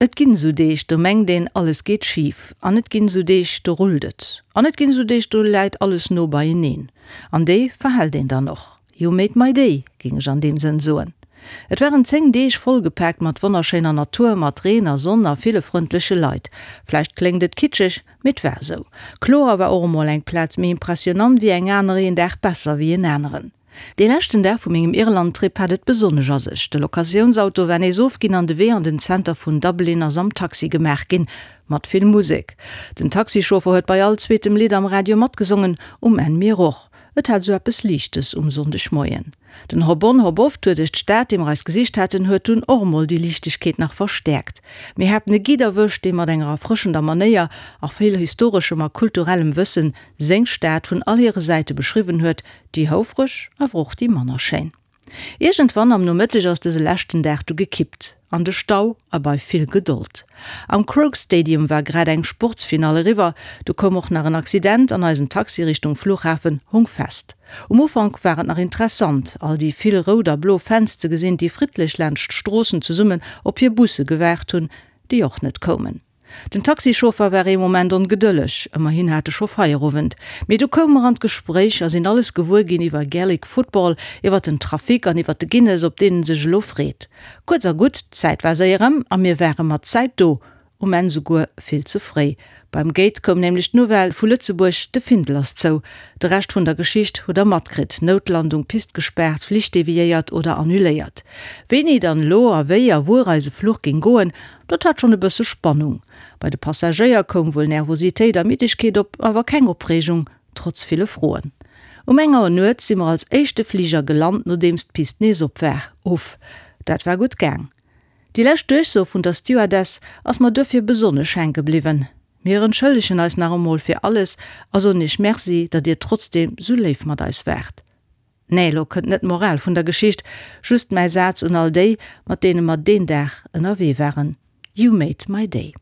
Et ginn esou Deeg, do mengt een, alles geet schif. An et ginn esou Deeg, do rullt et. An et ginn esou Deeg, do läit alles no beieneen. An déi verhält een dann och. You made my day, géing ech an deem Sënn soen. Et waren 10 Deeg vollgepaakt mat wonnerschéiner Natur, mat Reen a Sonn a ville frëndleche Leit. Vläicht kléngt et kitscheg, mee et war esou. Kloer war och emol eng Plaz méi impressionant wéi eng aner, een Dag besser wéi en aneren. Dee leschten Dag vu mengem Irland-Trip hat et besonnesch a sech. De Locatiounsauto war nees ofginn an de Wee an den Zenter vun Dublin ass am Taxi gemaach ginn, mat vill Musek. Den Taxichauffer huet bei all zweetem Lidd am Radio matgesongen, um Enn mir och. Et hat esou eppes Liichtes um Sonndegmoien. Den Hop-on, Hop-off-Tour duerch d'Stad, dee mer eis gesicht haten, huet dunn och emol déi Liichtegkeet nach verstäerkt. Mir haten e Guide erwëscht, dee mat enger erfrëschender Manéier a vill historeschem a kulturellem Wëssen seng Stad vun all hire Säite beschriwwen huet, Déi houfreg, awer och déi manner schéin. Iergendwann am Nomëtteg ass dëse leschten Dag du gekippt. An de Stau a bei vill Gedold. Am Croke Stadium war grad eng Sportsfinall eriwwer, du koum och nach en Accident an eisen Taxi Richtung Flughafen hung fest. Um Ufank war et nach interessant, all déi vill rout a blo Fans ze gesinn, déi friddlech laanscht d'Stroossen zesummen op hir Busse gewaart hunn, déi och net koumen. Den Taxichauffer war ee Moment ongedëlleg, ëmmerhin hat e scho Feierowend. Mee du koume mer an d'Gespréich a sinn alles gewuer ginn iwwer Gaelic Football, iwwer den Trafic an iwwer de Guinness, op deen en sech elo freet. Kuerz a gutt, d'Zäit war séier ëm a mir ware mat Zäit do, um Enn souguer vill ze fréi. Beim Gate koum nämlech d'Nouvelle vu Lëtzebuerg, de Findel ass zou. De Rescht vun der Geschicht hutt der matkritt, Noutlandung, Pist gespaart, Flich deviéiert oder annuléiert. Wéini dann elo a wéi a wuer eise Fluch géing goen, Dat hat schonn e bësse Spannung. Bei de Passagéier koum wuel Nervositéit a Middegkeet op, awer keng Opreegung, trotz ville Froen. Um eng Auer nuets si mer als éischte Fliger gelant, nodeems d'Pist nees op war. Uff, dat war gutt gaang. Déi lescht Duerchso vun der Stewardess ass mer duerfir besonnesch hänke bliwwen, Mir entschëllegen eis nach emol fir alles a soen iech Merci, datt dir trotzdeem sou léif mat eis waart. Nee, lo kënnt net d'Moral vun der Geschicht, just mäi Saz un all déi, mat deene mer deen Dag ënnerwee waren, You made my day.